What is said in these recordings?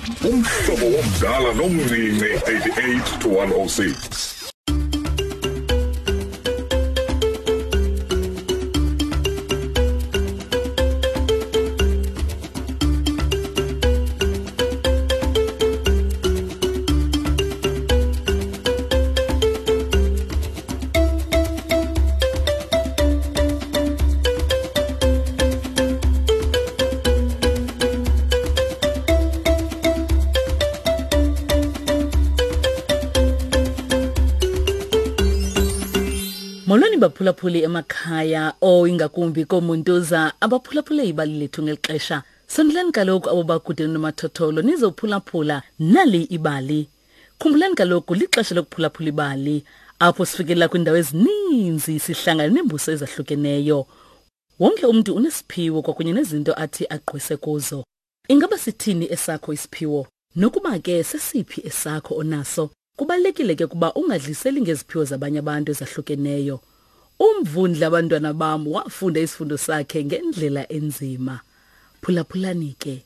Umhlobo womdala nomncinci 88 to 106. Molweni baphulaphuli emakhaya o ingakumbi koomuntuza abaphulaphule ibali lethu ngeli xesha. Sondelani kaloku abo bakude nomathotholo nizophulaphula nali ibali. Khumbulani kaloku lixesha lokuphulaphula ibali apho sifikelela kwiindawo ezininzi sihlangana neembuso ezahlukeneyo. Wonke umntu unesiphiwo kwakunye nezinto athi agqwese kuzo. Ingaba sithini esakho isiphiwo? Nokuba ke sesiphi esakho onaso, kubalulekile ke ukuba ungadliseli ngeziphiwo zabanye abantu ezahlukeneyo. Umvundla abantwana bam wafunda isifundo sakhe ngendlela enzima. Phulaphulani ke.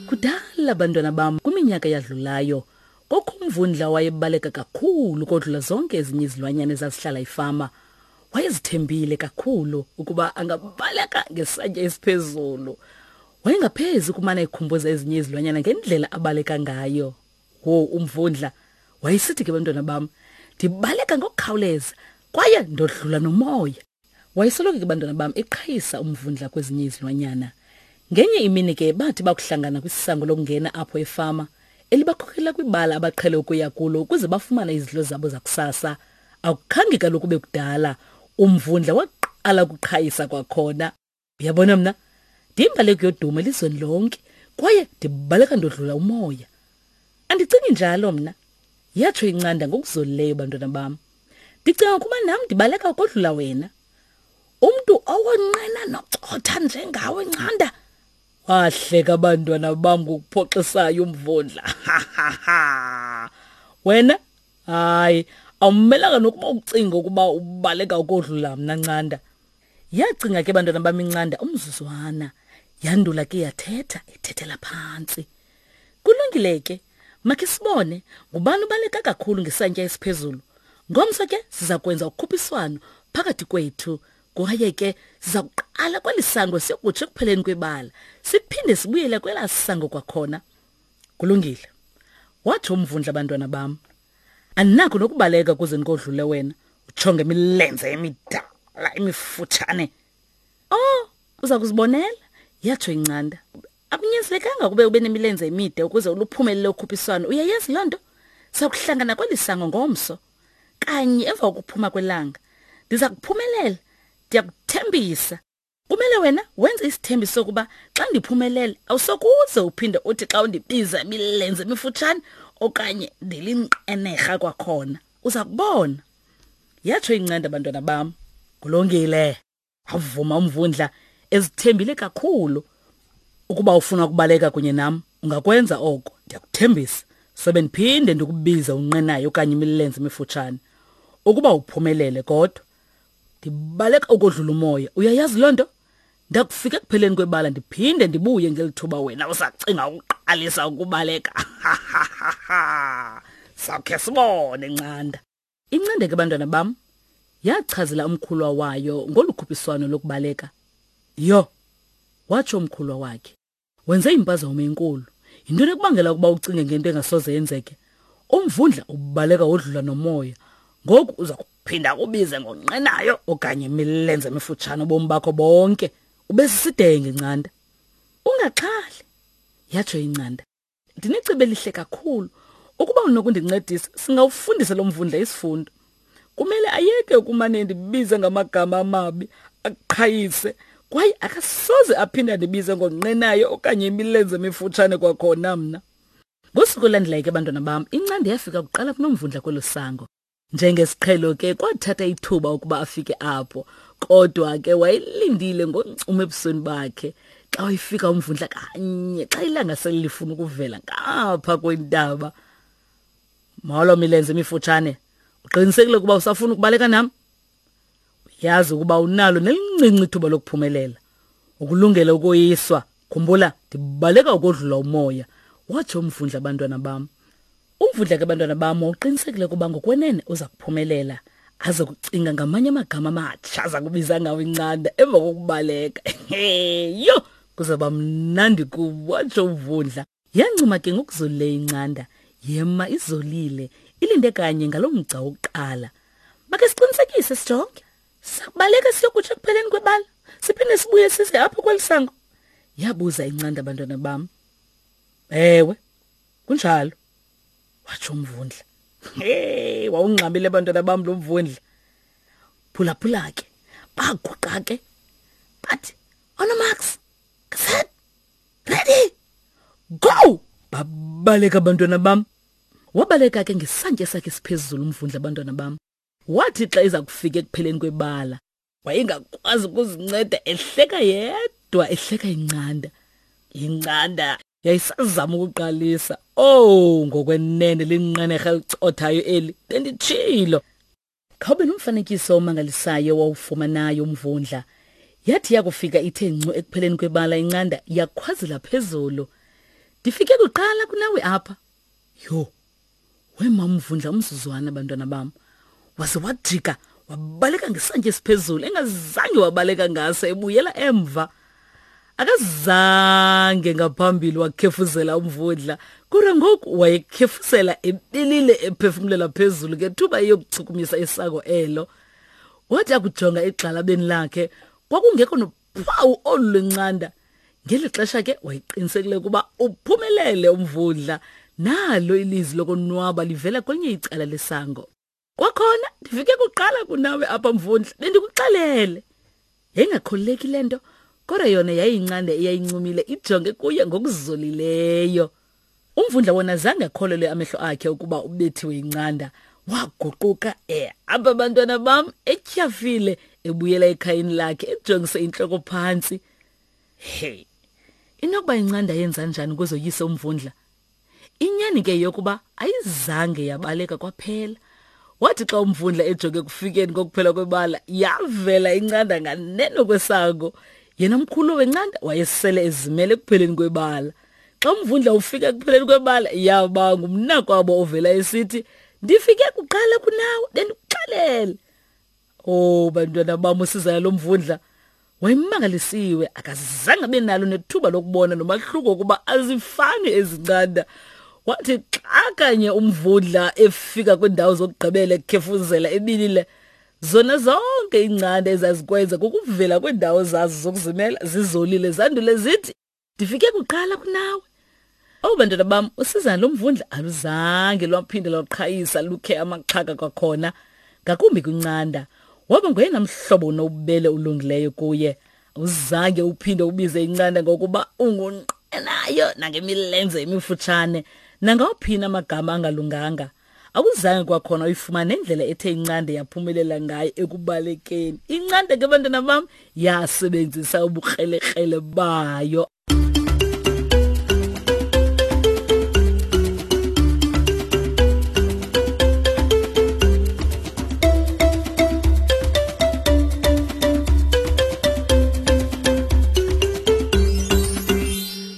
Kudala bantwana bam kwiminyaka eyadlulayo kokho umvundla wayebaleka kakhulu kodlula zonke ezinye izilwanyana ezazihlala ifama. Wayezithembile kakhulu ukuba angabaleka ngesantya esiphezulu. Wayengaphezi ukumana ekhumbuza ezinye izilwanyana ngendlela abaleka ngayo. Wo umvundla wayesithi ke bantwana bam, ndibaleka ngokukhawuleza kwaye ndodlula nomoya. Wayesoloko ke bantwana bam eqhayisa umvundla kwezinye izilwanyana. Ngenye imini ke bathi bakuhlangana kwisisango lokungena apho efama elibakhokela kwibala abaqhele ukuya kulo ukuze bafumane izidlo zabo zakusasa. Akukhange kaloku kube kudala umvundla waqala ukuqhayisa kwakhona. Uyabona mna ndiyimbaleki yodumo elizweni lonke kwaye ndibaleka ndodlula umoya. Andicingi njalo mna, yatsho incanda ngokuzolileyo bantwana bam. Ndicinga ukuba nam ndibaleka ukodlula wena. Umntu owonqena nocotha njengawe ncanda. Wahleka abantwana bam ngokuphoxisayo umvundla. Wena hayi awumelanga nokuba ucinga ukuba ubaleka ukodlula mna ncanda. Yacinga ke bantwana bam incanda umzuzwana. Yandula ke yathetha ethethela phantsi. Kulungile ke, makhe sibone ngubani ubaleka kakhulu ngesantya esiphezulu. Ngomso ke siza kwenza ukhuphiswano phakathi kwethu kwaye ke siza kuqala kweli sango siyokutsho ekupheleni kwebala siphinde sibuyele kwelaa sango kwakhona. Kulungile, watsho umvundla bantwana bam. Andinakho nokubaleka kuze ndikodlule wena utsho ngemilenze emidala emifutshane. Oh, uza kuzibonela, yatsho incanda. Akunyanzelekanga kube ube nemilenze emide ukuze uluphumelele ukhuphiswano. Uyayazi loo nto? Sakuhlangana kweli sango ngomso. Kanye emva kokuphuma kwelanga. Ndiza kuphumelela. Ndiyakuthembisa. Kumele wena wenze isithembiso sokuba xa ndiphumelele awusokuze uphinde uthi xa undibiza imilenze emifutshane okanye ndilinqenerha kwakhona. Uza kubona. Yatsho incanda bantwana bam. Kulungile. Wavuma umvundla ezithembile kakhulu. Ukuba ufuna ukubaleka kunye nam, ungakwenza oko. Ndiyakuthembisa. Sobe ndiphinde ndikubize unqenayo okanye imilenze emifutshane. Ukuba uphumelele kodwa ndibaleka ukodlula umoya uyayazi loo nto ndakufika ekupheleni kwebala ndiphinde ndibuye ngeli thuba wena usacinga ukuqalisa ukubaleka sawukhe sibone ncanda incande ke bantwana bam yachazela umkhulwa wayo ngolu khuphiswano lokubaleka yho watsho umkhulwa wakhe Wenze impazamo enkulu. Yintoni ekubangela ukuba ucinge ngento engasoze yenzeke? Umvundla ubaleka wodlula nomoya. Ngoku uza kuphinda kubize ngonqenayo okanye imilenze emifutshane ubomi bakho bonke. Ube sisidenge ncanda. Ungaxhali, yatsho incanda. Ndinecebo elihle kakhulu. Ukuba unokundincedisa, singawufundisa lo mvundla isifundo. Kumele ayeke ukumane endibize ngamagama amabi, aqhayise, kwaye akasoze aphinde andibize ngonqenayo okanye imilenze emifutshane kwakhona mna. Ngosuku olulandelayo ke bantwana bam, incandi yafika kuqala kunomvundla kwelo sango. Njengesiqhelo ke kwathatha ithuba ukuba afike apho, kodwa ke wayelindile ngoncumo ebusweni bakhe. Xa wayefika umvundla kanye xa ilanga sele lifuna ukuvela ngapha kwentaba. Molo milenze emifutshane. Uqinisekile ukuba usafuna ukubaleka nam? Uyazi ukuba unalo nelincinci ithuba lokuphumelela. Ukulungela ukoyiswa. Khumbula, ndibaleka ukodlula umoya. Watsho umvundla abantwana bam. Umvundla ke bantwana bam wawuqinisekile ukuba ngokwenene uza kuphumelela. Aze kucinga ngamanye amagama amatsha aza kubiza ngawo incanda emva kokubaleka. Yho, kuzaba mnandi kubo, watsho umvundla. Yancuma ke ngokuzolileyo incanda, yema izolile, ilinde kanye ngaloo mgca wokuqala. Make siqinisekise sijonge. Sakubaleka siyokutsho ekupheleni kwebala, siphinde sibuye size apho kweli sango. Yabuza incanda bantwana bam. Ewe, kunjalo, watsho umvundla. Hey, wawungxamile bantwana bam lo mvundla. Phulaphula ke, baguqa ke. Bathi, "Onomax, set, ready, go!" Babaleka abantwana bam. Wabaleka ke ngesantya sakhe siphezulu umvundla abantwana bam. Wathi xa iza kufika ekupheleni kwebala, wayengakwazi ukuzinceda ehleka yedwa ehleka incanda. Incanda yayisazama ukuqalisa. Oh, ngokwenene linqenerha elicothayo eli, benditshilo. Khawube nomfanekiso omangalisayo wawufumanayo umvundla. Yathi yakufika ithe ncu ekupheleni kwebala incanda yakhwazela phezulu. Ndifike kuqala kunawe apha. Yho, wema umvundla umzuzwana bantwana bam. Waze wajika wabaleka ngesantya esiphezulu engazange wabaleka ngaso ebuyela emva. Akazange ngaphambili wakhefuzela umvundla kodwa ngoku wayekhefuzela ebilile ephefumulela phezulu ngethuba eyokuchukumisa isango elo. Wathi akujonga egxalabeni lakhe kwakungekho nophawu olu lwencanda. Ngeli xesha ke wayeqinisekile ukuba uphumelele umvundla. Nalo ilizwi lokonwaba livela kwelinye icala lesango. Kwakhona ndifike kuqala kunawe apha mvundla, bendikuxelele. Yayingakholeleki le nto, kodwa yona yayiyincanda eyayincumile ijonge kuye ngokuzolileyo. Umvundla wona zange akholelwe amehlo akhe ukuba ubethiwe yincanda. Waguquka ehamba bantwana bam etyhafile ebuyela ekhayeni lakhe ejongise intloko phantsi. Hey, inokuba incanda yenza njani ukuze oyise umvundla? Inyani ke yokuba ayizange yabaleka kwaphela. Wathi xa umvundla ejonge ekufikeni kokuphela kwebala, yavela incanda nganeno kwesango. Yena mkhulu wencanda wayesele ezimele ekupheleni kwebala. Xa umvundla ufika ekupheleni kwebala, yaba ngumnakwabo ovela esithi, "Ndifike kuqala kunawe, bendikuxelele." Oh bantwana bam usizana lo mvundla wayemangalisiwe akazange abe nalo nethuba lokubona nomahluko ukuba azifani ezincanda. Wathi xa kanye umvundla efika kwiindawo zokugqibela ekhefuzela ebilile zona zonke iincanda ezazikwenza kukuvela kwiindawo zazo zokuzimela zizolile zandule zithi Ndifike kuqala kunawe. Owu bantwana bam, usizana lomvundla aluzange lwaphinde lwaqhayisa lukhe amaxhaka kwakhona, ngakumbi kwincanda. Waba ngoyena mhlobo unobubele ulungileyo kuye. Awuzange uphinde ubize incanda ngokuba ungunqenayo nangemilenze emifutshane nangawuphina amagama angalunganga. Awuzange kwakhona uyifumane nendlela ethe incande yaphumelela ngayo ekubalekeni. Incande ke bantwana bam yasebenzisa ubukrelekrele bayo.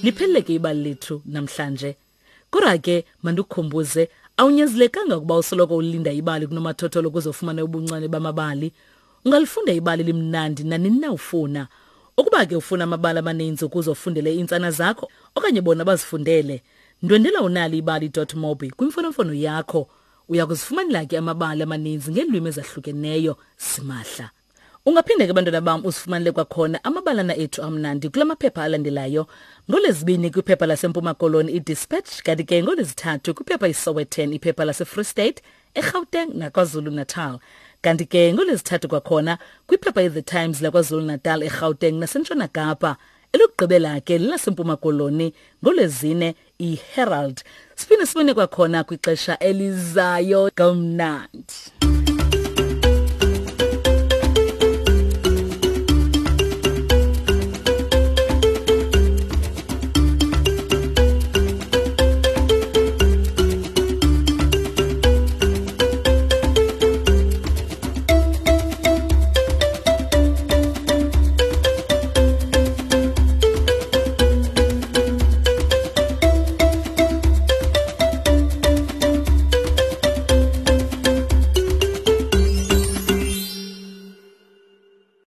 Liphelele ke ibali lethu namhlanje. Kodwa ke mandikukhumbuze awunyanzelekanga ukuba usoloko ulinda ibali kunomathotholo ukuze ufumane ubuncane bamabali. Ungalifunda ibali limnandi nanini na ufuna. Ukuba ke ufuna amabali amaninzi ukuze ufundele iintsana zakho okanye bona bazifundele, ndwendela unaliibali.mobi kwimfonomfono yakho. Uya kuzifumanela ke amabali amaninzi ngeelwimi ezahlukeneyo simahla. Ungaphinde ke bantwana bam usifumanele kwakhona amabalana ethu amnandi kula maphepha alandelayo. NgoLwezibini kwiphepha laseMpuma Koloni iDispatch kanti ke ngoLwezithathu kwiphepha iSowetan, iphepha laseFree State, eGauteng naKwaZulu-Natal. Kanti ke ngoLwezithathu kwakhona kwiphepha iThe Times laKwaZulu-Natal, eGauteng naseNtshona Kapa. Elokugqibela ke lelaseMpuma Koloni ngoLwezine iHerald. Siphinde sibone kwakhona kwixesha elizayo. Kamnandi.